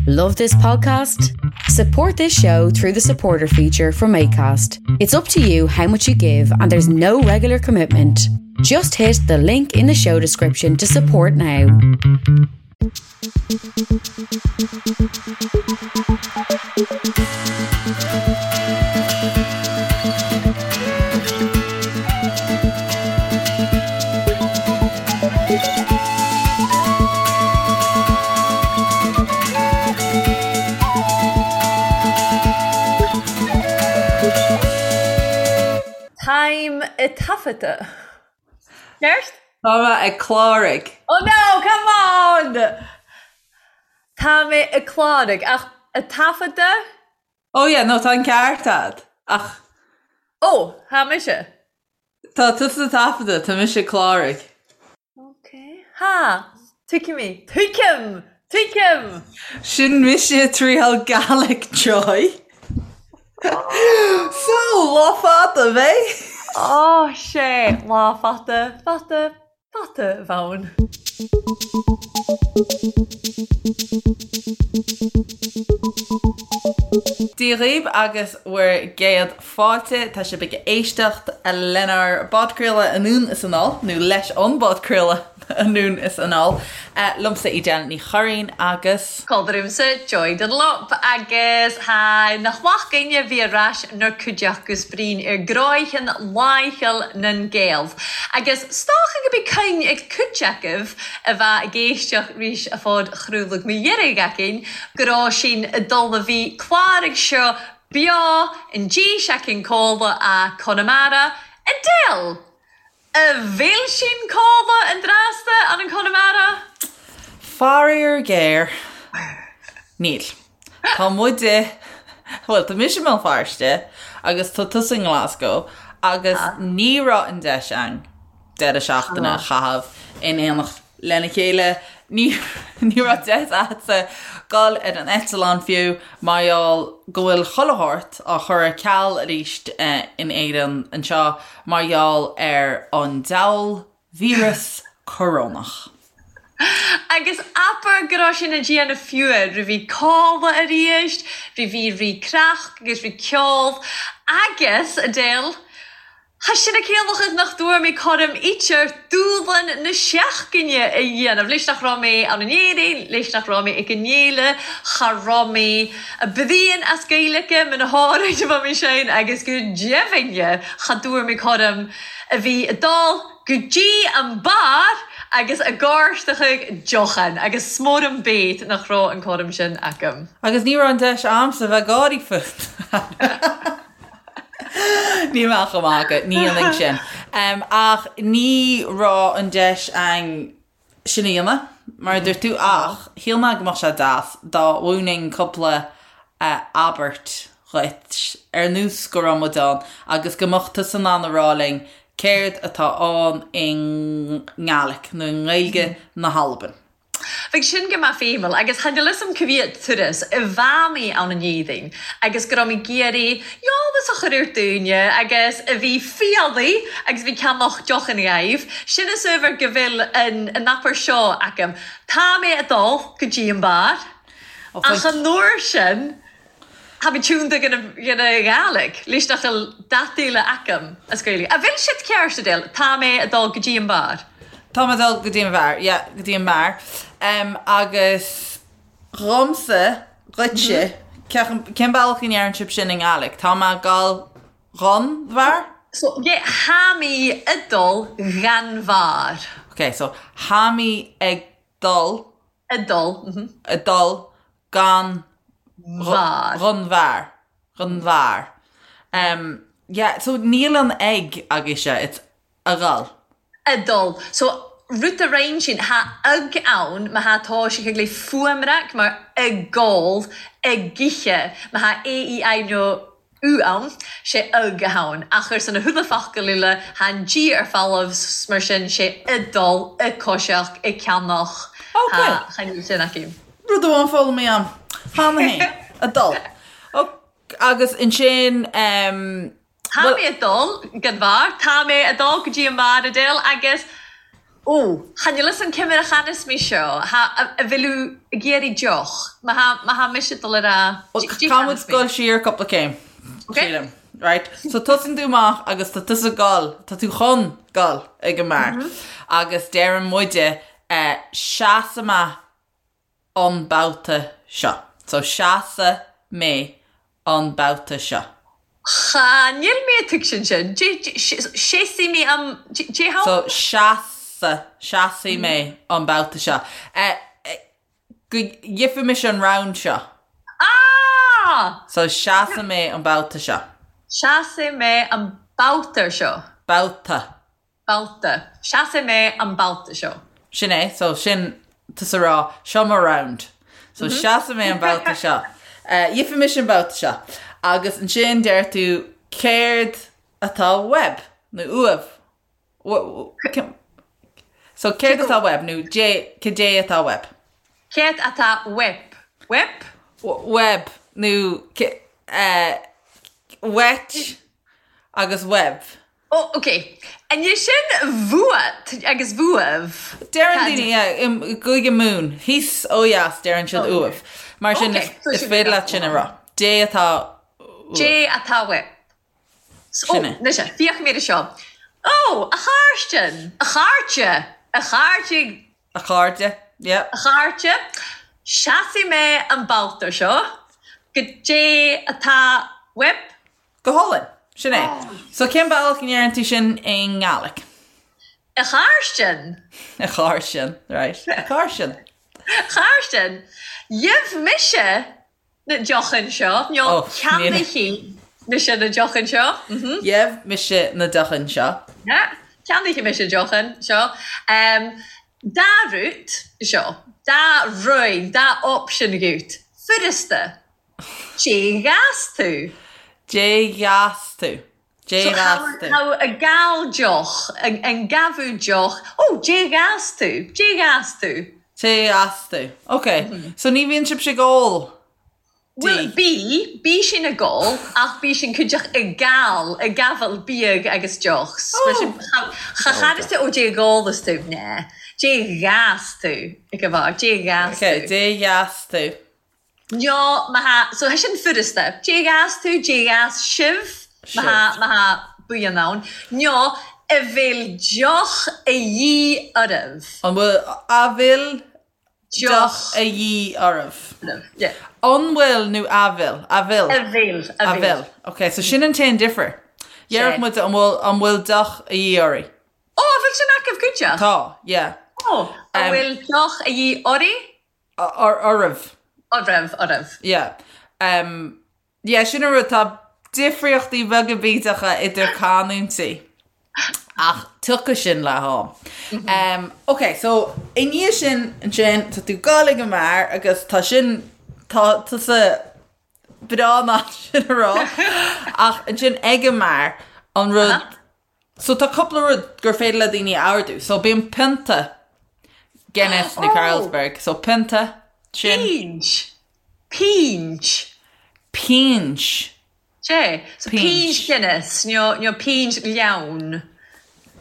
Love this podcast? Support this show through the supporter feature from ACAST. It's up to you how much you give, and there's no regular commitment. Just hit the link in the show description to support now. Táim ag taifeadadh. Ceart? Tá mé ag cláraigh. Oh no, come on! Tá mé ag cláraigh, ach ag taifeadadh? Oh yeah, no, tá an ceart a'd, ach. Oh, tá mise. Tá tusa ag taifeadadh, tá mise ag cláraigh. Ok. Ha! Tuigim í. Tuigim! Tuigim! Sin mise ag triail Gaelic Joy. So, lá fada, ab é? Ó, sé, lá fada, fada, fada a bh' ann. Dia dhaoibh agus bhur gcéad fáilte. Tá sibh ag éisteacht lenár bpodchraoladh Anonn is Anall, nó leis an bpodchraoladh Anonn is Anall, liomsa Edel Ní Churraoin agus. Cothramsa Joy Dunlop agus tha nach math againn a bhith air ais 'nar cuideachd gus bruidhinn air gnòithean làitheil nan Gael. Agus 's dòcha gob e cuinn ag cuid agaibh a bha ag èisteachd ris a' phodchraoladh deiridh againn gu robh sinn a' dol a bhith clàraig seo beo an dè-seachdain còmhla a Conamara. Edel! A bheil sinn còmhla an dràsta ann an Conamara? Faraor géar, níl. Tá muide, bhuel, tá mise i mBéal Feirste agus tá tusa i nGlasgow agus ní raibh an deis againn deireadh seachtaine a chaitheamh in éineacht lena chéile. Ní ní raibh deis a'dsa dul ar an eitleán fiú mar gheall go bhfuil chuile shórt á chur ar ceal arís in Éirinn anseo mar gheall ar an diabhal víreas corónach. Agus abair go raibh sinn a' dèanamh fiù ri bhith codladh a-rìst, ri bhith ri creachd agus ri ceol agus, Edel, Tha sin a' ciallachadh nach dtuar mi coram eitear dùbhlan na seachdaine a dhéanamh. Leis nach raibh mé ann in Éirinn, leis nach raibh mé ag an fhéile, cha raibh mé a' bruidhinn as Gaeilge, muna háirid a bha mé sin agus go deimhin cha dtuar mi coram a bhith a' dol go dtí an beár agus a' gàirteachadh deochan agus 's mòr am bét nach raibh an coram sin agam. Agus ní raibh an deis a'msa bheith ag gáirí fút. Níl mé ach ag magadh, ní dhéanfainn sin. Ach ní raibh an deis a'inn sin a dhéanamh, mar a dúirt tú, ach shíl mé go mbeadh sé deas dá mhúinfinn cúpla abairt dhuit, ar nós go raibh muid ann, agus go mbeadh tusa in ann a rá linn céard atá ann i nGaelic, nó i nGaeilge na hAlban. Bheadh sin go math feidhmiúil agus chan eil fhios a'm ca mhiad turas a bha mi ann in Éirinn agus go raibh mi ag iarraidh eolas a chur ar daoine agus a bhith fialaigh agus a bhith ceannach deochan dhaoibh. Sin a' saobhar go bhfuil an an abairt seo agam. Tá mé a' dul go dtí an beár ach an uair sin Tha mi tiúnda dhan a Ghàidhlig, leis nach eil dad eile agam as Gaeilge. A bheil siad ceart, Edel? Tá mé a dul go dtí an beár. Tá mé ag dul go dtí an bheár, yeah, go dtí an mbeár. Um, agus dhomsa, dhuitse, cén bealach a ndeireann sibh sin i nGàidhlig? Tá mé ag dul dhon bheár? So, yeah, tha mi a dol dhan bhàr. Ok, so, tha mi ag dul. A dul, mhm. A dul gan bheár. Dhon bheár. Dhon bheár. Um, yeah, so níl an ag agaibhse, it's a dhul. A dul. So, rud a roinn sin, tha ag ann, ma tha tá sé ag le fuaimreac mar ag gol, ag ithe, ma tha A, E, I nó U ann, sé ag a tha ann. Ach ar son na huile focal eile, tha an G ar falamh, 's mar sin, sé a dul, a coiseach, a ceannach, Ok. tha chan eil sin acu. Rud amháin foghlamtha a'm. Cheana féin. A dul. Ok, agus ansin, em, Tá bhuel, mé a dul gan bheár, tá mé a dul go dtí an mbeár, Edel, agus. Ó, chan fhios an cimire chanas mé seo, tha a bhfuil thú ag iarraidh deoch, má tha, má tha mise ag dul a rá, Bhuel, caithfidh muid dul siar cúpla céim, sílim. Right? So tosaíonn tú amach agus tá tusa ag dul, tá tú chun dul ag an mbeár. Agus deireann muide, eh, seasfaidh mé an babhta seo. So seasfaidh mé an babhta seo. Cha, níl mé ag tuigsint sin. Seasfaidh mé an, dé how? So seasfaidh, seasfaidh mé an babhta seo. Go gheobhaidh mise an round seo. Ah! So seasfaidh mé an babhta seo. Seasfaidh mé an babhta seo. Babhta. Babhta. Seasfaidh mé an babhta seo. Sin é, so sin tusa ag rá, seo mo round. So seasfaidh mé an babhta seo. Gheobhaidh mise an babhta seo. Agus ansin deir tú céard atá uaibh? Nó uaibh? So céard atá uaibh? Nó cad é atá uaibh? Céard atá uaibh? Uaibh? Uaibh. Nó uait agus uaibh. Ó, ok. Anois sin uait agus uaibh. Deireann daoine, yeah, i gCúige Mumhan, thíos ó dheas, deireann siad uaibh. Mar sin, is féidir leat sin a rá. Dé atá uaibh. Dé atá uaibh. Ó, anois, féach mé air seo. Ó, a Chairsten! A chairde! A chairde! A chairde, yeah. A chairde, seasfaidh mé an babhta seo. Goidé atá uaibh. Go hálainn. Sin é. So cén bealach a ndeireann tú sin i nGaelic? A Chairsten. A Chairsten, right. A Chairsten. A Chairsten. Gheibh mise na deochan seo, nó ceannaífidh mise na deochan seo. Gheibh mise na deochan seo. Yeah. Ceannaífidh mise deochan seo. Dá rud seo. Dá rud, dá option dhuit. Furasta. Dé ghas tú? Dé ghas tú? Dé ghas tú? Tá a gal deoch, an gabhadh deoch, ó, dé ghas tú? Dé ghas tú? Dé ghas tú? Ok, so ní bhíonn sibhse ag ól Bhuel, bí, bí sinn ag ól, ach bí sinn cuideach ag gal, ag gabháil biadh agus deoch. Cha chanas tú, ó, dé ghálas tú, ná, dé ghas tú, ag gabháil, dé ghas tú. Ok, dé ghas tú? Nó má tha, so tha sin furasta. Dé ghas tú, dé ghas sibh, má tha, má tha buíon ann. Nó a bhfuil deoch a dhíth oraibh. An bhfuil, a bhfuil deoch a dhíth oraibh. Yeah. An bhfuil nó a bhfuil? A bhfuil. A bhfuil, a bhfuil. A bhfuil. Ok, so sin an t-aon difear. Déarfadh muid an bhfuil, an bhfuil deoch a dhíth oraibh. Ó, a bhfuil sin agaibh cuideach? Tá, yeah. Ó, a bhfuil deoch a dhíth oraibh? Oraibh. Oraibh, oraibh. Yeah. Um, yeah, sin an rud, tá difríochtaí beaga bídeacha idir canúintí. Ach tiocfaidh sin le ham. Mm -hmm. um, ok, so i ndiaidh sin ansin tá tú ag dul ag an mbeár agus tá sin tá tusa breá in ann sin a rá ach ansin ag an mbeár an rud uh -huh. So tá cúpla rud gur féidir le daoine a ordú. So bíonn pionta Guinness nó Carlsberg. So pionta, sin. Pínt. Pínt. Pínt. Sé. So pínt Guinness nó nó pínt leann.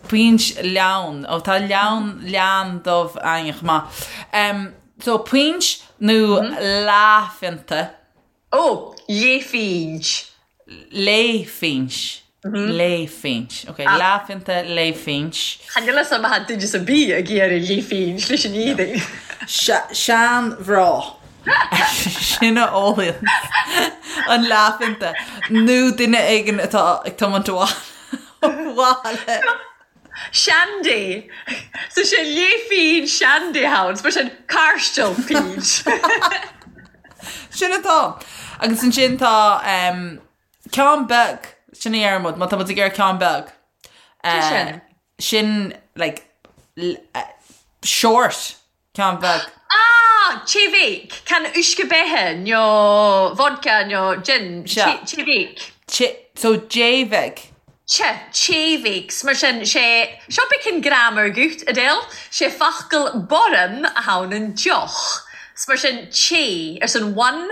Pínt leann. Ó tá leann leann dubh againn chomh maith. Um, so pínt nó leathphionta. Ó, leathphínt. Leathphínt. Leathphínt. Ok, leathphionta, leathphínt. Chan fhuil fhios a'm má tha duine 's a' bith ag iarraidh leathphínt leis an éadaigh. Seanmhná. Sin a ólann an leathphionta. Nó duine éigin atá ag tiomáint abhaile. Shandy. So sé leathphínt shandy ann. Mar sin cairstil pínt. Sin atá. Agus ansin tá um, ceann beag, sin a deireann muid, má tá muid ag iarraidh ceann beag. Uh, sin? Sin, like, uh, short Ceann beag. Ah! Tae bheag. Can uisce beatha nó vodka nó gin. Sea. Tae bheag. Tae, so tae bheag. Tae, tae bheag. Mar sin, sé, seo beag an grammar agat, Adele. Sé focal borum a tha ann an deoch. 'S mar sin, tae, ar son one.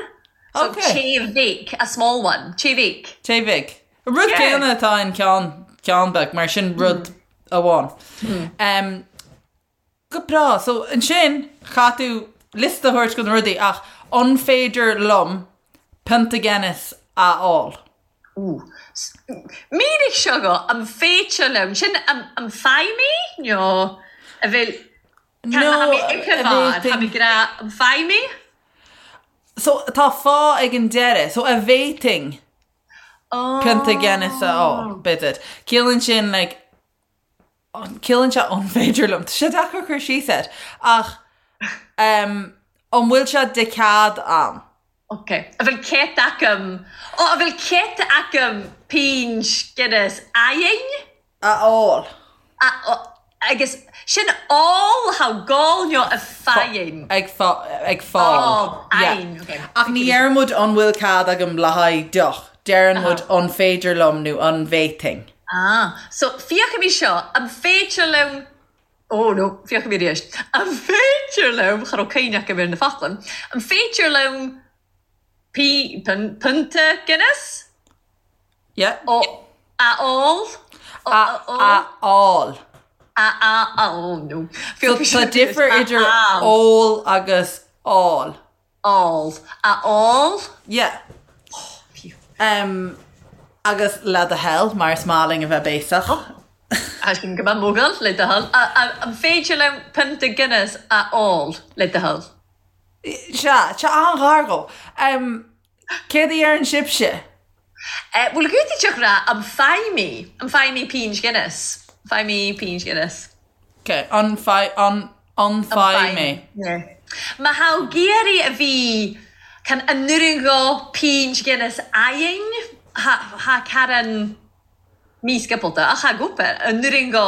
So Ok. tae bheag, a small one. Tae bheag. Tae bheag. An rud Yeah. céanna atá in ceann, ceann beag, mar sin rud amháin. Um, Go breá. So ansin chaith tú liosta a thabhairt de na rudaí ach an féidir liom pionta Guinness a fháil? Ooh. Mínigh seo dhom, an féidir liom, sin an bhfaighidh mé nó a bhfuil, No, tá mé ag a tá bhféadfainn. mé ag rá an bhfaighidh mé? So tá fá ag an deireadh. So a bhféadfainn pionta Guinness a fháil, b'fhéidir. Ciallaíonn sin like Ciallaíonn sé an féidir liom. Tá sé deacair cur síos air. Ach an bhfuil sé de chead a'm? Ok. A bhfuil cead agam, ó, a bhfuil cead agam pint Guinness a'inn? A fháil. A, agus sin ól, tha gol nó a faighinn? Ag ag fáil. Fháil, ok. Ach ní deireann muid an bhfuil cead agam le haghaidh deoch. Deireann muid an féidir liom nó an bhféadfainn. Ah, so féachaimis seo, an féidir liom, oh no, féachaimis arís, an féidir liom, cha raibh cuimhne agam ar na focla, an féidir liom pí, pionta Guinness? Yeah. Ó, a ól? A, a fháil. A, a, a, oh no. So tá difear idir ól agus fháil. Ól. A ól? Yeah. Oh, phew. Um, agus le do thoil, mar is maith linn a bheith béasach. Oh, sin go maith mogall, le do thoil. An féidir liom pionta Guinness a ól, le do thoil? Sea, tá an-ghar dhó. Um, céard a dheireann sibhse? Eh, bhuel, gútaí rá, an bhfaighidh mé, an bhfaighidh mé pint Guinness? An bhfaighidh mé pint Guinness? Ok, an bhfaighidh, an, an bhfaighidh mé. Yeah. Má tha ag iarraidh a bhith can an n-urran dho pint Guinness a'inn, tha, tha carran mísciopalta, ach tha gopa, an n-urran dho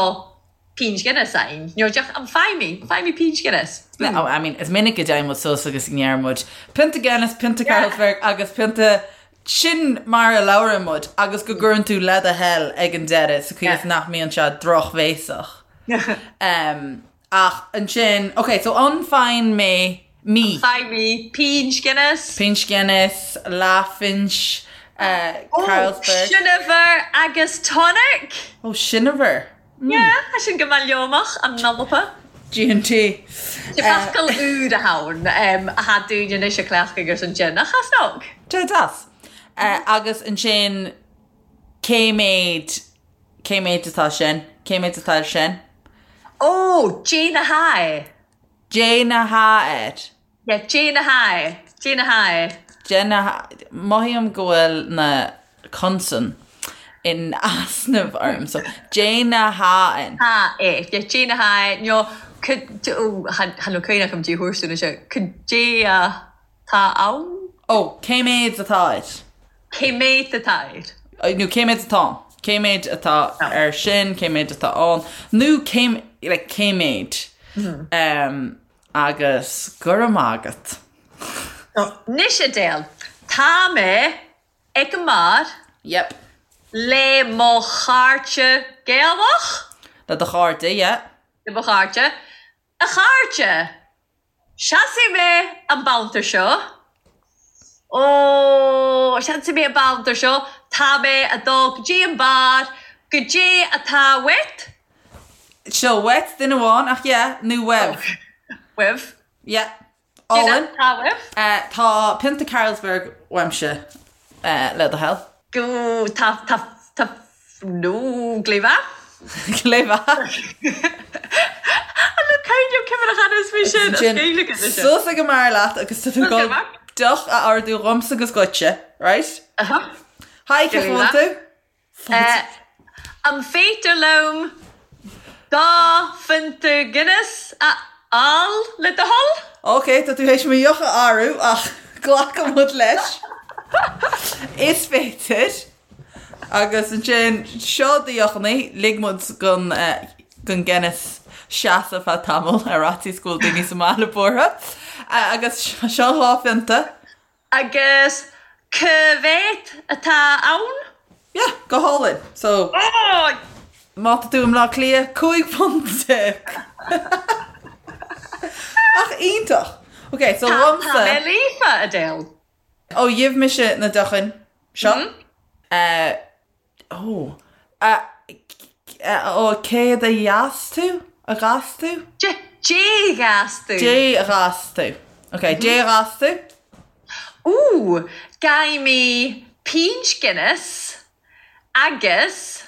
pint Guinness a'inn. Nó deoch, an bhfaighidh mé, an bhfaighidh mé pint Guinness? No, I mean, is minic go dtéann muid suas agus go ndeireann muid pionta Guinness, pionta Carlsberg agus pionta Sin mar a labhrann muid agus go gcuireann tú le do thoil ag an deireadh sa chaoi is nach mbíonn sé drochbhéasach. Ach ansin, ok, so an bhfaigheann mé, mí. An bhfaighidh mé pint Guinness. Pint Guinness, leathphint Carlsberg. Ó, Shinniver agus tonic! Ó, Shinniver. Yeah, tá sin go maith leomach, an nolapa. G&T. Focal úr a tha ann, a tha daoine anois a cleachtadh ar son sin, ach as nog. Tá deas. Agus ansin, cé mhéad, cé mhéad atá sin? Cé mhéad atá air sin? Ó, Dè na tha e. Dè na tha air. Yeah, dè na tha e, dè na tha e. Dè na tha, mothaím go bhfuil na consain in easnamh orm, so dè na tha ann. Tha e, yeah, dè na tha e, nó oh, chan eil cuimhne agam dè thabhairt dúinn anseo, cad é atá ann? Ó, cé mhéad atá air? Cé mhéad atá air? Nó cé mhéad atá ann? Cé mhéad atá air sin, cé mhéad atá ann, nó cé, like, cé mhéad? Um, Agus go raibh maith agat. Anois Edel, tá mé ag an mbeár. Yep. Le mo chairde Gaelach. Le do chairde, yeah. Le mo chairde. A chairde! Seasfaidh mé an babhta seo. Ó, seasfaidh mé an babhta seo. Tá mé a dul go dtí an beár. Goidé atá uait? Seo uait duine amháin ach yeah, nó uaibh. Uaibh. Yeah. Álainn. Tá uaibh. Tá pionta Carlsberg uaimse le do thoil. Go, tá, tá, tá, nó, gléibhe. Gléibhe. An le caint cimire cheana is mé sin, as Gaeilge is sin. Suas ag an mbeár leat agus tá tú ag dul deoch a ordú dhomsa agus dhuitse, right? Hi, cén chaoi a bhfuil tú? An féidir liom dá phionta Guinness a fháil le do thoil? Ok, tá tú théis mo dheoch a athrú ach glacfaidh muid leis. Is féidir. Agus ansin, seo do dheochanna, lig muid don don Guinness seasamh feadh tamaill ar fhaitíos go bhfuil daoine sa mbaile buartha. Agus seo dhá phionta. Agus cá mhéad atá ann? Yeah, go hálainn. So, má tá tú i mBleá Cliath, £15. Ach iontach! Ok, so dhomsa... Tá mé líofa, Edel. Ó, gheibh mise na deochanna seo. Ó, ó, céard a gheas tú? A ghas tú? Dé ghas tú. Dé ghas tú. Ok, dé ghas tú. Ooh, Ghaibh mé pínt Guinness agus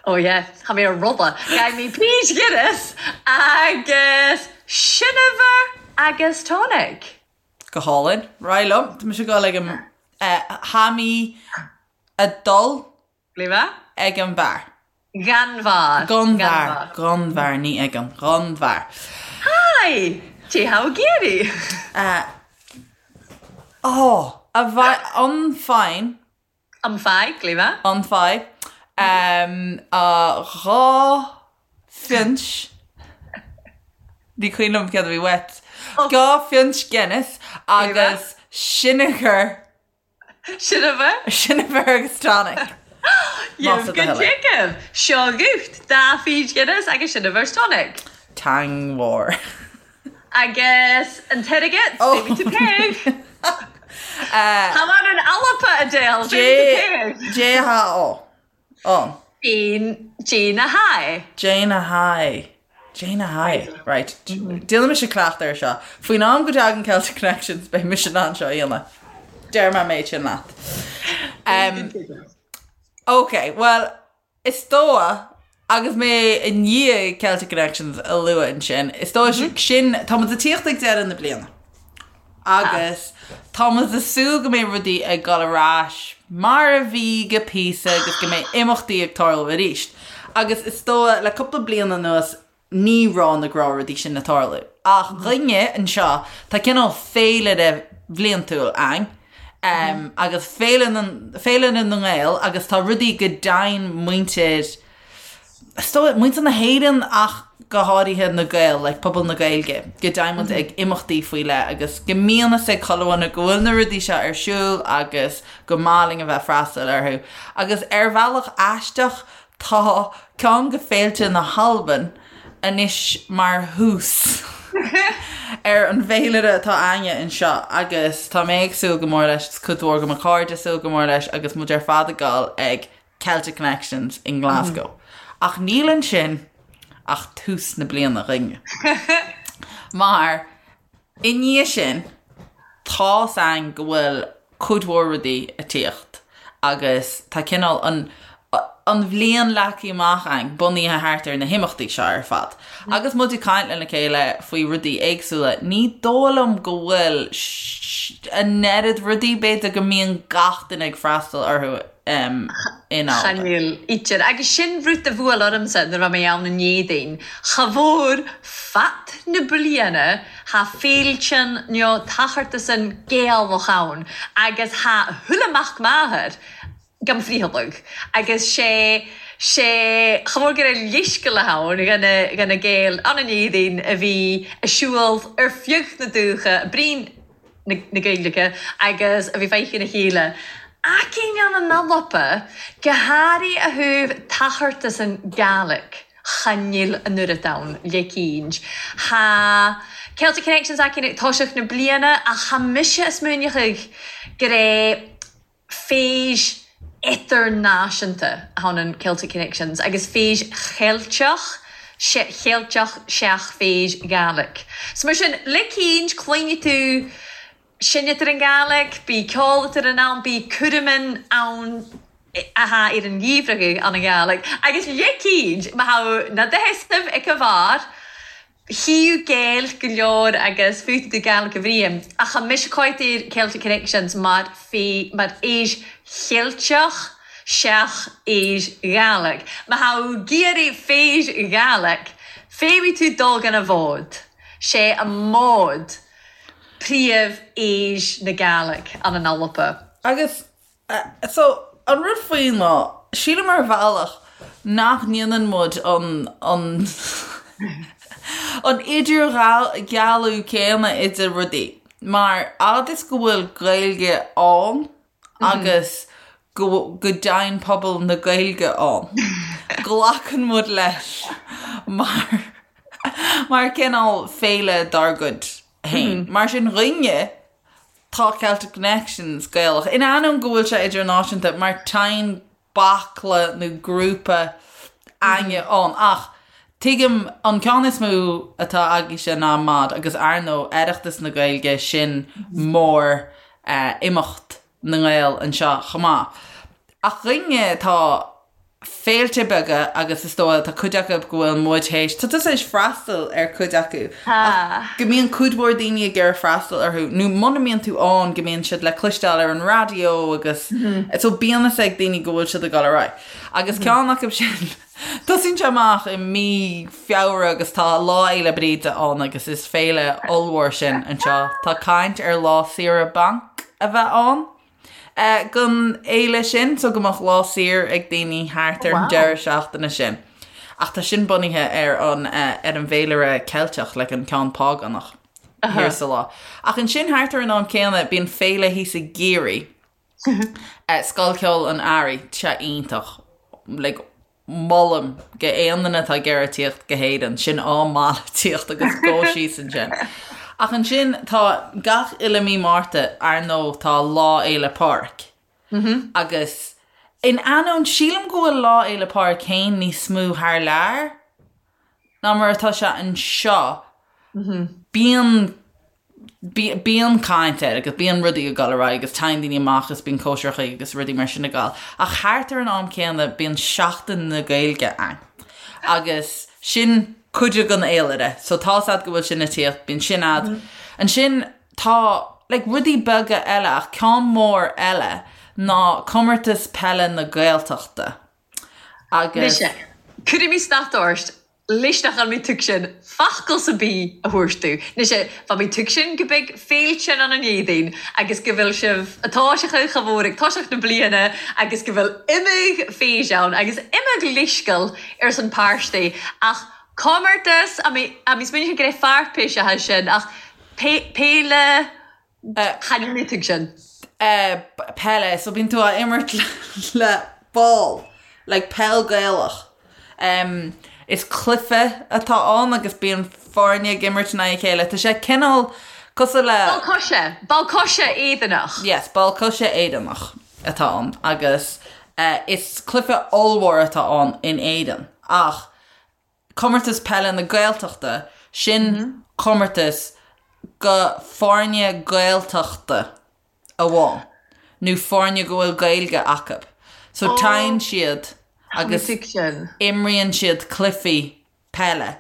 Oh yeah, tha mi a' rotha. Ghaibh mi pínnt Guinness agus seineabhar agus tonic. Go hálainn. Ar aghaidh liom. Tá mise ag dul ag an Tha mi a' dul Glima? Ag an bheár. Ghan bheár. Gon bheár. Gon bheár, ní ag an. Gon bheár. Hi! Dè tha thu ag iarraidh? Ó! A bheith an fine. Am fai, glima. An fai. A dha phionnt. Ní cuimhin liom céard a bhí uait. Dha phionnt Guinness agus sineagar. Sineabhar. Sineabhar agus tonic. Más do thoil é. Seo dhuit, dà phínnt Guinness agus sineabhar 's tonic. Teangmhór. Agus an t-airgead, feumaidh thu paoidh. Tha mu an Alba, Adele, feumaidh thu paoidh. Dè tha ó. An. Jane, Jane a hAi. Jane a hAi. Jane a hAi. Right. Déanfaidh mise cleachtadh air seo. Faoin am go dtagann Celtic Connections beidh mise in ann seo a dhéanamh. Deir mé an méid sin leat. Um, ok, well, is dóigh agus mé i ndiaidh Celtic Connections a lua ansin, is dóigh sin, tá muid ag tíocht ag deireadh na bliana. Agus tá muid ag súil go mbeidh rudaí ag dul ar ais mar a bhí go píosa agus go mbeidh imeachtaí ag tarlú arís. Agus is dóigh le cúpla bliain anuas ní raibh na gnáthrudaí sin ag tarlú. Ach dhúinne anseo tá cineál féilire bhliantúil ann agus Féile Féile na nGael agus tá rudaí go dtéann muintir Is dóigh, muintir na hÉireann ach go háirithe na Gaeil, like pobal na Gaeilge, go dtéann muid ag imeachtaí faoi leith agus go mbíonn fhios ag chuile dhuine go bhfuil na rudaí seo ar siúl agus go maith linn a bheith freastal orthu. Agus ar bhealach aisteach tá ceann de féilte na hAlban anois mar thús ar an bhféilire atá a'inne anseo agus tá mé ag súil go mór leis, is cuid mhór de mo chairde ag súil go mór leis agus muid ar fad ag dul ag Celtic Connections i nGlasgow. Ach níl ansin ach tús na bliana dhúinne. Mar i ndiaidh sin tá's a'inn go bhfuil cuid mhór rudaí ag tíocht agus tá cineál an an bhliain leagtha amach a'inn bunaithe thart ar na himeachtaí seo ar fad. Agus muid ag caint lena chéile faoi rudaí éagsúla, ní dóigh liom go bhfuil an oiread rudaí b'fhéidir go mbíonn gach duine ag freastal orthu in Albain. Chan eil idir. Agus sin rud a bhuail ormsa nuair a bha mi ann an Dèadaoin. Cha mhór fad na bliana tha fèilean no tachartasan Gaelach ann agus tha chuile mac màthar gam friothalaig. Agus sé sé cha mhór gur leithsgeul ann dhan na Gaeil ann an Dèadaoin a bhí a' siubhal air feadh na dubhtha, bruidhinn na Gaeilge agus a bhí feicthe ina chéile. Aicinn ann an Alba, go hàraidh a thaobh tachartasan Gàidhlig, chan eil an oiread ann leicínt. Tha Celtic Connections aicinn ag toiseacht na bliana ach tha mise a' smaoineachadh gur é fèis idirnáisiúnta a tha ann Celtic Connections agus fèis Cheilteach, Cheilteach seach fèis Ghàidhlig. So mar sin, leicínt, cluinfidh tú seinntear an Ghàidhlig, bidh ceol eatar ann, bidh cúraman ann a tha air an gheimhreadh ann an Ghàidhlig. Agus leicínt, ma tha na dothasaibh ag a bharr, Chíodh Gaeilg go leor agus fúthu do Gaeilge a bhriain, ach tha mise còite air Celtic Connections mar mar fhèis Cheilteach seach fhèis Ghàidhlig. Ma tha thu ag iarraidh fèis Ghàidhlig, feumaidh thu dol gan a bhod. 'Sé an mòd príomh fhèis na Gàidhlig ann an Alba. Agus So, an rud faoi ná, sílim ar bhealach nach ndéanann muid an, an, an idirdhealú céanna idir rudaí, mar fhad is go bhfuil Gaeilge ann agus go, go dtéann pobal na Gaeilge ann, glacann muid leis mar, mar cineál féile dár gcuid féin. Mar sin dhúinne, Tá Celtic Connections Gaelach, in ainneoin go bhfuil sé idirnáisiúnta, mar téann baicle nó grúpa a'inne ann. Ach Tuigim, an ceann is mó atá agaibhse ná MOD agus ar ndóigh Oireachtas na Gaeilge sin mór imeacht na nGael anseo chomh maith. Ach dhúinne tá féilte beaga agus is dóigh tá cuid acu go bhfuil muid théis, tá tusa théis freastal ar cuid acu ach go mbíonn cuid mhór daoine ag iarraidh freastal orthu nó muna mbíonn tú ann go mbíonn siad le cloisteáil ar an raidió agus so bíonn fhios ag daoine go bhfuil siad ag dul ar aghaidh. Agus ceann acu sin Tosaíonn sé amach i mí Feabhra agus tá Lá Fhéile Bríde ann agus is féile ollmhór sin anseo. Tá caint ar lá saoire bainc a bheith ann don fhéile sin so go mbeadh lá saor ag daoine thart ar an deireadh seachtaine sin. Ach tá sin bunaithe ar an ar an bhféilire Ceilteach, like an ceann págánach thiar sa lá. Ach ansin thart ar an am céanna bíonn féile thíos i gCiarraí. Scoil Cheoil an Earraigh, tá sé iontach. Like, molaim go aon duine atá ag iarraidh tíocht go hÉirinn, sin am maith le tíocht agus dul síos ansin. Ach ansin tá gach uile mí Márta, ar ndóigh, tá Lá Fhéile Pádraig. Agus in ainneoin, sílim go bhfuil Lá Fhéile Pádraig féin níos mó thar lear ná mar atá sé anseo. Bíonn Bíonn caint air agus bíonn rudaí ag dul ar aghaidh agus téann daoine amach agus bíonn cóisireacha agus rudaí mar sin ag dul. Ach thart ar an am céanna bíonn Seachtain na Gaeilge ann agus sin cuid den fhéilire. So tá's a'd go bhfuil sin ag tíocht, bíonn sin a'd. Ansin tá like rudaí beaga eile ach ceann mór eile ná Comórtas Peile na Gaeltachta agus. Mise, cuirfidh mé stad ort Leis nach bhfuil mé tuigsin focal sa bith a thabhairt tú. Mise, bheadh mé tuigsin go beidh féilte ann an Éadaoin agus go bhfuil sibh a toiseachadh cha mhór ag toiseacht na bliana agus go bhfuil imeadh féis ann agus imeadh leithsceal ar son páistí ach comórtas a mé a mé smaoineachadh go raibh fairpéis acha sin ach péile Chan fhuil mé tuigsin. Peile, so bíonn tú á imirt le ball, like peil Gaelach. Is cluiche atá ann agus bíonn foirne ag imirt in aghaidh a chéile. Tá sé cineál cosúil le. Ball coise, ball coise Éireannach. Yes, ball coise Éireannach atá ann agus is cluiche ollmhór atá ann in Éirinn ach Comórtas Peile na Gaeltachta, sin comórtas go foirne Gaeltachta amháin, nó foirne go bhfuil Gaeilge acu. So téann siad agus imríonn siad cluichí peile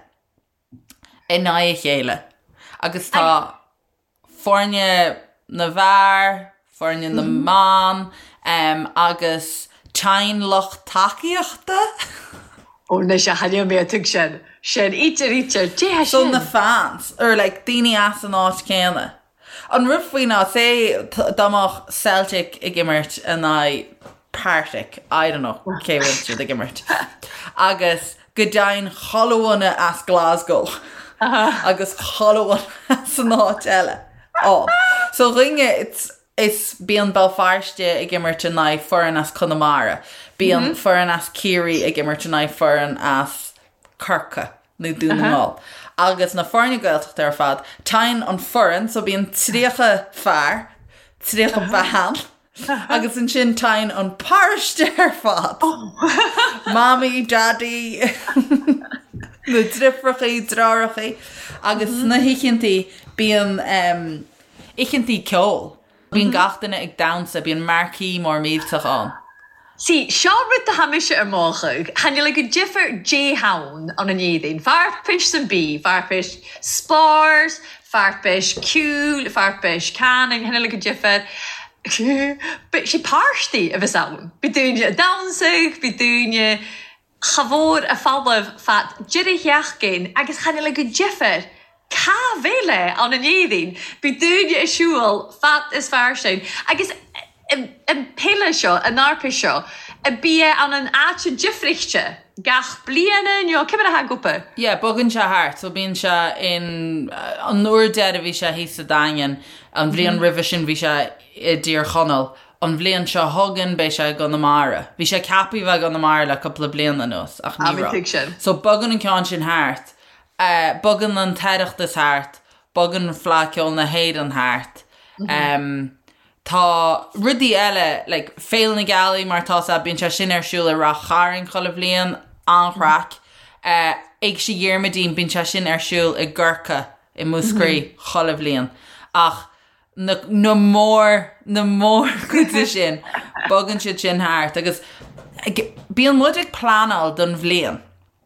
in aghaidh a chéile agus tá foirne na bhfear, foirne na mban agus téann lucht tacaíochta. Ó anois a chan fhuil mé a tuigsin sin, ítear ítear, dé sin. So na fans, or like daoine as an áit céanna. An rud faoi ná, say dá mbeadh Celtic ag imirt in aghaidh Partick, I don't know cé bhfuil siad ag imirt, agus go dtéann chuile dhuine as Glasgow agus chuile dhuine as an áit eile ann. So dhúinne it's is bíonn Béal Feirste ag imirt in aghaidh foireann as Conamara, bíonn foireann as Ciarraí ag imirt in aghaidh foireann as Corcaigh nó Dún na nGall. Agus na foirne Gaeltachta ar fad, téann an foireann, so bíonn 30 fear, 30 bean, Agus ansin téann an paróiste ar fad. Mamaí, Daidí, na driofrachaí, dreárachaí. Agus sna hoícheantaí bíonn oícheantaí ceoil. Bíonn gach duine ag damhsa, bíonn marquee mór millteach ann. See, seo rud atá mise ar mochadh. Chan fhuil go difear Dé hann ann an Éadaoin. Fairpis san bí, fairpis spárs, fairpis ceoil, fairpis canning, chan fhuil go difear. Bidh sé páistí a bheas ann. Bidh daoine a' damhsadh, bidh daoine cha mhór a' falamh fad deireadh sheachtain agus chan fhuil go difear cá bhféile ann an Éadaoin. Bidh daoine a' siúl fad is fairsing agus an peile seo, an fhairpis seo, a bia ann an áite difrichte gach bliana nó cé mar atá ag obair? Yeah, bogann sé thart, so bíonn sé in, an uair deiridh bhí sé thíos sa Daingean, an bhliain roimhe sin bhí sé i dTír Chonaill, an bhliain seo chugainn beidh sé i gConamara. Bhí sé ceaptha a bheith i gConamara le cúpla bliain anuas ach ní raibh. So bogann an ceann sin thart, bogann an tOireachtas thart, bogann Fleadh Ceoil na hÉireann thart. Tá rudaí eile, like Féile na Gealaí mar atá 's a'd, bíonn sé sin ar siúl i Rath Chairn chuile bhliain, an-chraic. Éigse Dhiarmuidín, bíonn sé sin ar siúl i gCorca i Múscraí chuile bhliain ach na na mór na mórchuide sin bogann siad sin thart agus bíonn muid ag pleanáil don bhliain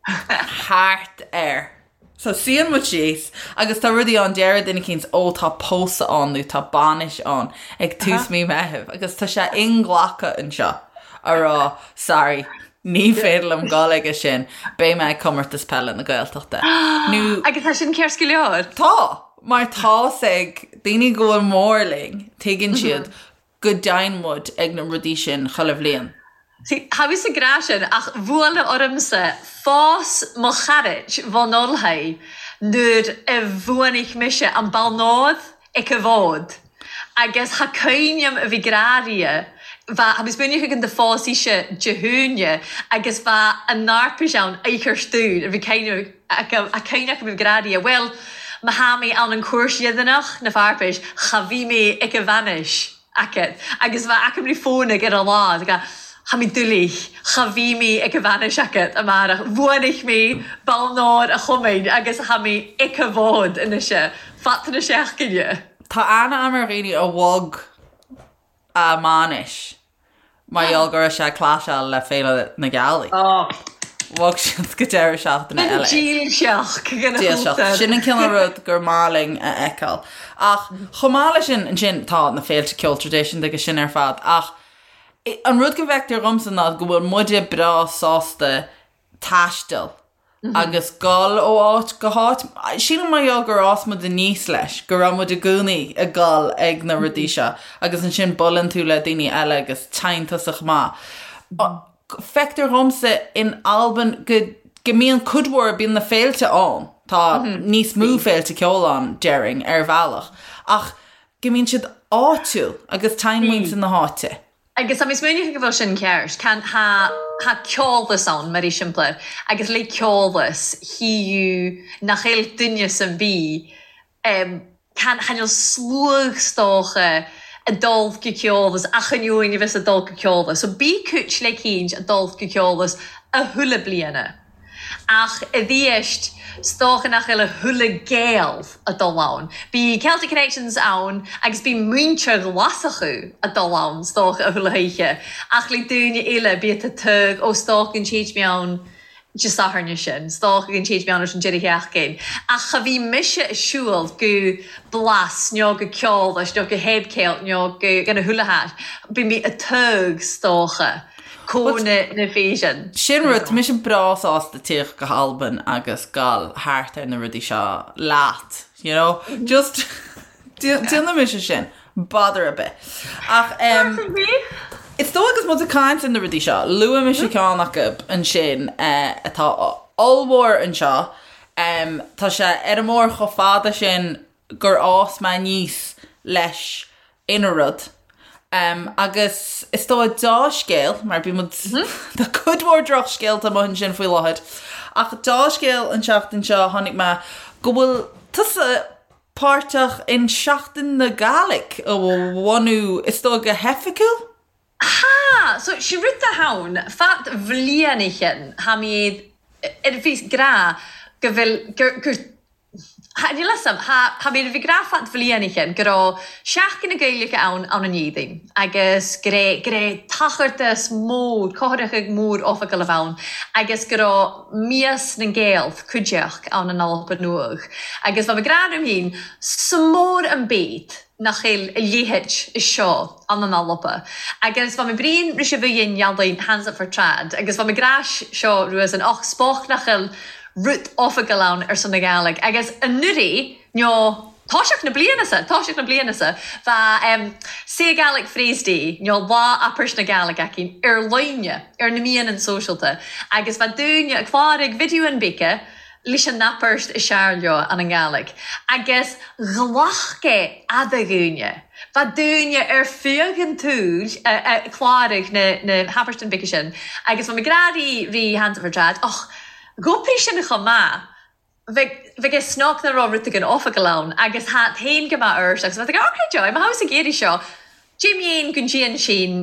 thart air. So suíonn muid síos agus tá rudaí ann, deir duine eicínt ó tá pósadh ann nó tá bainis ann ag tús mí Meitheamh agus tá sé inghlactha anseo a rá sorry ní féidir liom dul aige sin, beidh mé ag Comórtas Peile na Gaeltachta. Nó. Agus tá sin ceart go leor? Tá! Mar tá's ag daoine go bhfuil mór linn, tuigeann siad go dtéann muid ag na rudaí sin chuile bhliain. See, tha mise ag ràdh sin, ach bhuail ormsa phòs mo charaid bhon Olthaidh nuair a bhuanaich mise an balnòd aig a' bhod agus tha cuimhne a'm a bhith ag ràdh ri bha tha mi smaoineachadh gun do phòs ise Dè hAoine agus bha an arpais ann oicheart dùn a bhí cuimhne a cuimhne agam a bhith ag ràdh ri bhuel ma tha mi ann an cùirt dheireanach na fharpais cha bhith mi aig a' bhainis. agat agus bha aca ri fònadh air a' lá ag Tha mi doiligh, cha bhith mi aig a' bhainis agat amàrach, bhuanaich mi balnòr a' chumainn agus tha mi aig a' bhod a-nise, fad na seachdaine. Tá aithne agam ar dhaoine a bhog a mbainis mar gheall go raibh sé ag claiseáil le Féile na Gealaí. Bhog siad go deireadh seachtaine eile. Dílseach den Dílseach. Sin an cineál rud gur maith linn a fheiceáil. Ach chomh maith leis sin, ansin tá na féilte ceoil traidisiúnta agus sin ar fad ach an rud go bhfeictear dhomsa ná go bhfuil muide breá sásta taisteal agus dul ó áit go háit. Sílim mar gheall gur fhás muid aníos leis, go raibh muid i gcónaí ag dul ag na rudaí seo agus ansin buaileann tú le daoine eile agus téann tusa chomh maith. Feictear dhomsa in Albain go go mbíonn cuid mhór, bíonn na féilte ann, tá níos mó féilte ceoil ann, déarfainn, ar bhealach, ach go mbíonn siad áitiúil agus téann muintir na háite. Agus tá mé smaoineachadh go bhfuil sin ceart. Can, tha, tha ceòlas ann, mar eiseamplair, agus le ceòlas, thìodh nach eil duine am bith, em, can, chan eil sluagh 's dòcha a' dol gu ceòlas, achan uain a bheas a' dol gu ceòlas. So bidh cùit leicínt a' dol gu ceòlas a thuilleadh bliadhna. Ach a dh'eist, 's dòcha nach eil a thuilleadh Gael a' dol ann. Bidh Celtic Connections ann agus bidh muintir Ghlaschu a' dol ann, 's dòcha, a thuilleadh hoíche. Ach le daoine eile, bíodh a tug, ó 's dòcha gun téid mi ann Dè Sathairn sin, 's dòcha gun téid mi ann air an deireadh sheachdain. Ach cha bhith mise a' siubhal gu Blas, no gu Ceòlas, no gu HebCelt, no gu gan a thuilleadh háit. Bidh mi a' tug, 's dòcha. Cónaidh na Fèisean. Sin rud, tá mise breá sásta tíocht go hAlbain agus gabháil thart ar na rudaí seo leat, you know? Just déanfaidh mise sin, bother ar bith. Ach em, is dóigh agus muid ag caint ar na rudaí seo, luaigh mise ceann acu ansin eh, atá ollmhór anseo, em, tá sé ar an mbóthar chomh fada sin gur fhás mé aníos leis ina rud. Agus is dóigh deá-scéal, mar bíonn muid, tá cuid mhór drochscéalta amuigh ansin faoi láthair, ach deá-scéal an tseachtain seo tháinig mé go bhfuil tusa páirteach in Seachtain na Gàidhlig a bhunú, is dóigh go hoifigiúil? Tha! So, si rud a th' ann, fad bhliain a chinn, tha mi air bhith ag ràdh gu bheil, gur, gur, Tha, níl 'fhios a'm, tha, tha mi a bhith ag ràdh fad bhliain a chinn go robh Seachdain na Gaeilge ann ann an Iardain agus gur e, gur e tochartas mòr, cothrachadh mòr oifigeil a bh' ann agus go robh Mias nan Gael cuideachd ann an Alba Nuadh agus bha mi ag ràdh lium fhìn, 's mòr an beit nach eil a leitheid a seo ann an Alba agus bha mi bruidhinn ris a bhith dhein ealaín Hands Up for Trad agus bha mi ag ràdh seo ruadh-san och 's bocht nach eil rud oifigeil ann ar son na Gàidhlig agus anuraidh, nó toiseach na bliana sa, toiseach na bliana sa, bha em Say Gaelic Phrase Day, nó Lá Abairte na Gàidhlig againn ar line, ar na meadhanan sóisealta agus bha daoine ag clàraig videoann beaga leis an abairt is fhearr leo ann an Ghàidhlig agus ghlac e fhada dhaoine. Bha daoine ar feadh an tsaoil a' clàraig na na habairtean beaga sin agus bha mi ag ràdh ri ri Hands Up for Trad och Dh'oibrigh sin chomh maith. Bheadh, bheadh é snoc nach raibh rud éigin oifigeil ann agus tha féin go maith ort agus bheadh ag ok Joy, má tha thusa ag iarraidh seo, Jim Dhéan gun dtéann sin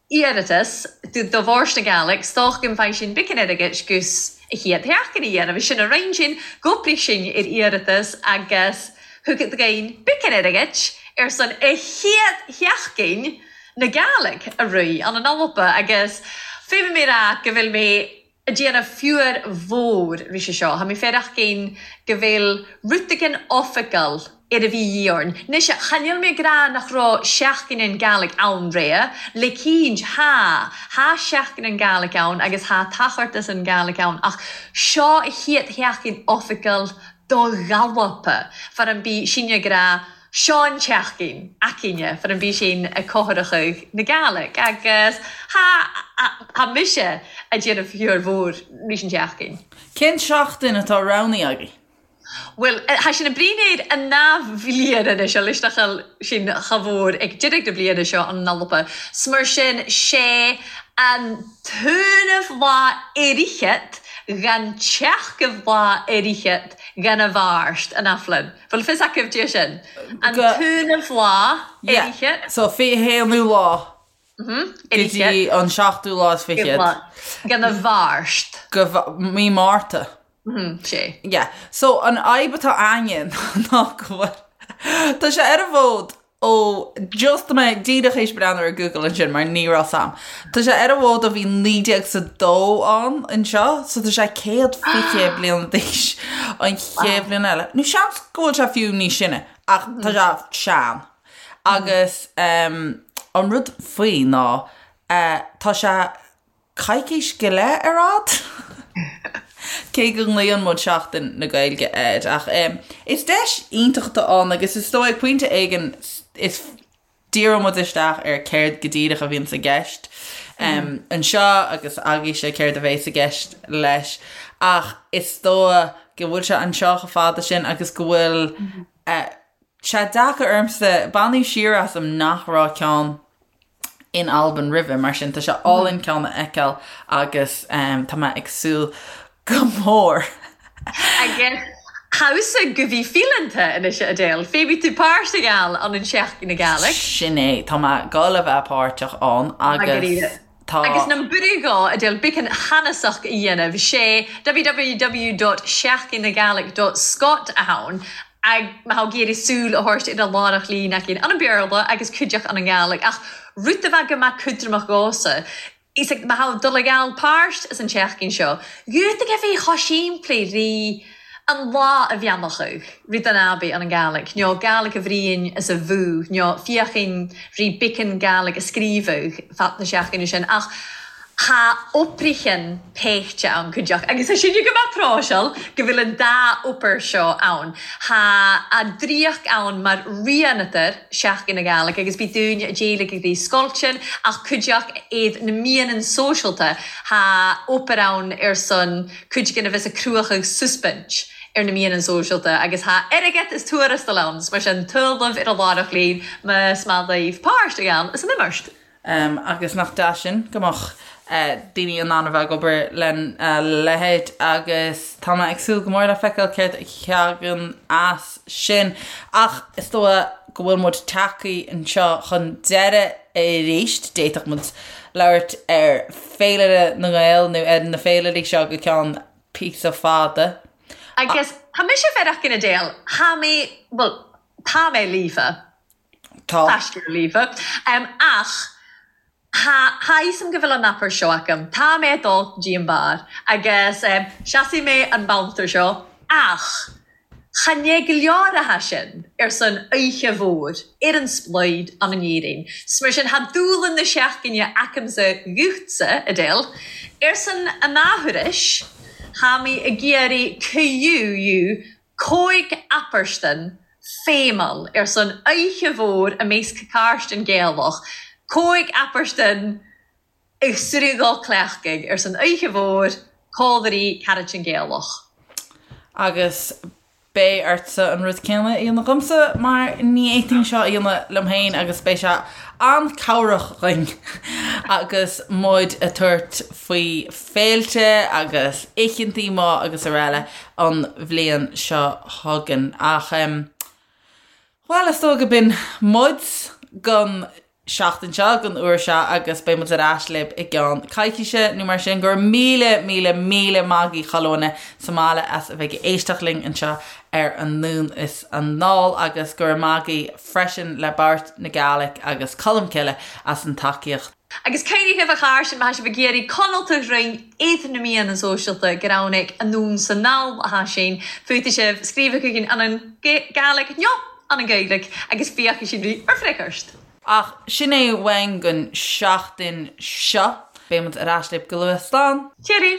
iarratas do do Fhoras na Gàidhlig, 's dòcha gun bhfaighidh sin beagan airgid gus A chéad sheachtain a dhéanamh sin a roinn sin, dh'oibrigh sinn ar iarratas agus thug againn beacán airgid ar son a chéad sheachtain na Gàidhlig a rith ann in Alba agus féadfaidh mé rá go bhfuil mé a' déanamh fiúr mhór ris seo. Tha mi faireachdain go bheil rud eigin oifigeil ar a bhí dhíth orainn. Anois, chan eil mi ag ràdh nach robh Seachdain nan Gàidhlig ann roimhe, le cinnt, tha, tha Seachdain nan Gàidhlig ann agus tha Tachartas nan Gàidhlig ann, ach seo a chéad sheachdain oifigeil do dh'Alba, far an bith sinne ag ràdh seo an tseachdain againne, far an bith sin ag cothrachadh na Gàidhlig, agus tha, tha mise a' déanamh fiúr mhór ris an tseachdain. Cén tseachtain atá roghnaithe agaibh? Bhuel, tha sinn a' bruidhinn air an dà bhliain anois, leis nach eil sinn cha mhór ag deireadh na bliana seo an Alba. 'S mar sin, 'sé an t-aonamh lá fhichead dhan tseachadh lá fhichead dhan a' Mhàirt an athbhliain. Bhfuil fios agaibh dè sin? An t-aonamh lá fhichead. So, 21ú lá go dtí an seachtú lá is fichead. Dhan a' Mhàirt. Go mí Márta. Sé. Yeah. So an fhadhb atá againn ná go bhfuil tá sé ar an bhfód ó just mé díreach théis breathnú ar Google ansin mar ní raibh 's a'm. Tá sé ar an bhfód ó bhí 1902 ann anseo so tá sé 120 bliana d'aois an chéad bhliain eile. Nó seans go bhfuil sé fiú níos sine ach tá sé sean. Agus an rud faoi ná tá sé coicís go leith ar fhad? Cé go nglaonn muid Seachtain na Gaeilge air, ach is deis iontach atá ann agus is dóigh ag pointe éigin is díreoidh muid isteach ar céard go díreach a bhíonns i gceist anseo agus agaibhse céard a bhéas i gceist leis ach is dóigh go bhfuil sé anseo chomh fada sin agus go bhfuil sé deacair ormsa baineadh siar asam nach raibh ceann in Albain roimhe, mar sin tá sé álainn ceann a fheiceáil agus tá mé ag súil go mór. Agus thusa gu bhith fidhleannta anois a Edel, feumaidh thu pàirt a ghabhail ann an Seachdain na Gàidhlig. Sin é, tá mé ag gabháil a bheith páirteach ann agus tá. Agus nam buireadh dhò, Edel, beacan cheannasach a dhéanamh, 'sé www.seachdain-na-gàidhlig.scot a th' ann Ag má tha thu ag iarraidh súil a thabhairt ar an làrach lìne againn ann an Beurla agus cuideachd ann an Gàidhlig ach rud a bheadh go maith cudramach dhomhsa is ag má tha thu dul ag ghabhail pàirt as an tseachdain seo dhubhtaigh a bheith chomh simplí ri an lá a bheannachadh ri don Abbey ann an Gàidhlig nó Gàidhlig a bhruidhinn as a bhú nó féachainn ri beacan Gàidhlig a scríobhadh fad na seachdaine sin ach Tha oibrichean peichte ann cuideachd agus tha sinne gu math pròiseil gu bheil an dà obair seo ann. Tha a' draíocht ann mar rianatar Seachdain na Gàidhlig agus bidh daoine a' déileig ag dtí scoiltean ach cuideachd iad na meadhanan sóisealta. Tha obair ann ar son cuid den a bheas a' cruachadh suspint ar na meadhanan sóisealta agus tha airgead is tuarastal ann 's mar sin tuilleamh ar a' làireach linn mas math leibh pàirt a ghabhail as an imeachd. Agus nach deas sin go mbeadh daoine in ann a bheith ag obair lena leithéid agus tá mé ag súil go mór le feiceáil céard a thagann as sin. Ach is dóigh go bhfuil muid tagtha anseo chun deireadh arís. D'fhéadfadh muid labhairt ar Féilire na nGael nó ar na féilirí seo go ceann píosa fada. Agus tá mise faireachdain Edel, tha mi, bhuel, tá mé líofa. Tá. Taiscear líofa. Ach tha fhios a'm gu bheil an abair seo agam. Tá mé ag dul go dtí an beár agus seasfaidh mé an babhta seo ach chan é go leor a tha sin ar son oíche mhór ar an spluid ann in Éirinn. 'S mar sin tha dúshlan na seachtaine agamsa dhuitse, Edel, ar son an athuair tha mi ag iarraidh cuidiú Cóig apairstean feamail ar son oidhche mhór i measc Càirstean Gaelach, cóig apairstean i sruth cleachtaidh ar son oidhche mhór códairí Caraitan Gaelach. Agus beidh ortsa an rud céanna a dhéanamh dhomsa mar ní fhéadfainn seo a dhéanamh liom féin agus beidh sé an-cabhrach dhuinn agus muid ag tabhairt faoi féilte agus oícheantaí maith agus araile an bhliain seo chugainn. Ach, bhuel, is dóigh go b'in muid don. seachtain seo, don uair seo agus beidh muid ar ais libh i gceann coicíse nó mar sin. Go raibh míle, míle, míle maith agaibh chuile dhuine sa mbaile as a bheith ag éisteacht linn anseo ar Anonn is Anall agus go raibh maith agaibh freisin le Bòrd na Gàidhlig agus Colmcille as an tacaíocht. Agus cuimhnigh a chairde, má thá sibh ag iarraidh coinneáil rinn id na meadhan sóisialta gur ann Anonn 's Anall athá sinn, féadfaidh sibh scríobh chugainn ann an Gàidhlig nó an an Ghaeilge agus féachfaidh sinn ri ar freagairt. Ach sin é uainn don seachtain seo. Beidh muid ar ais libh go luath. Slán! Cheerio!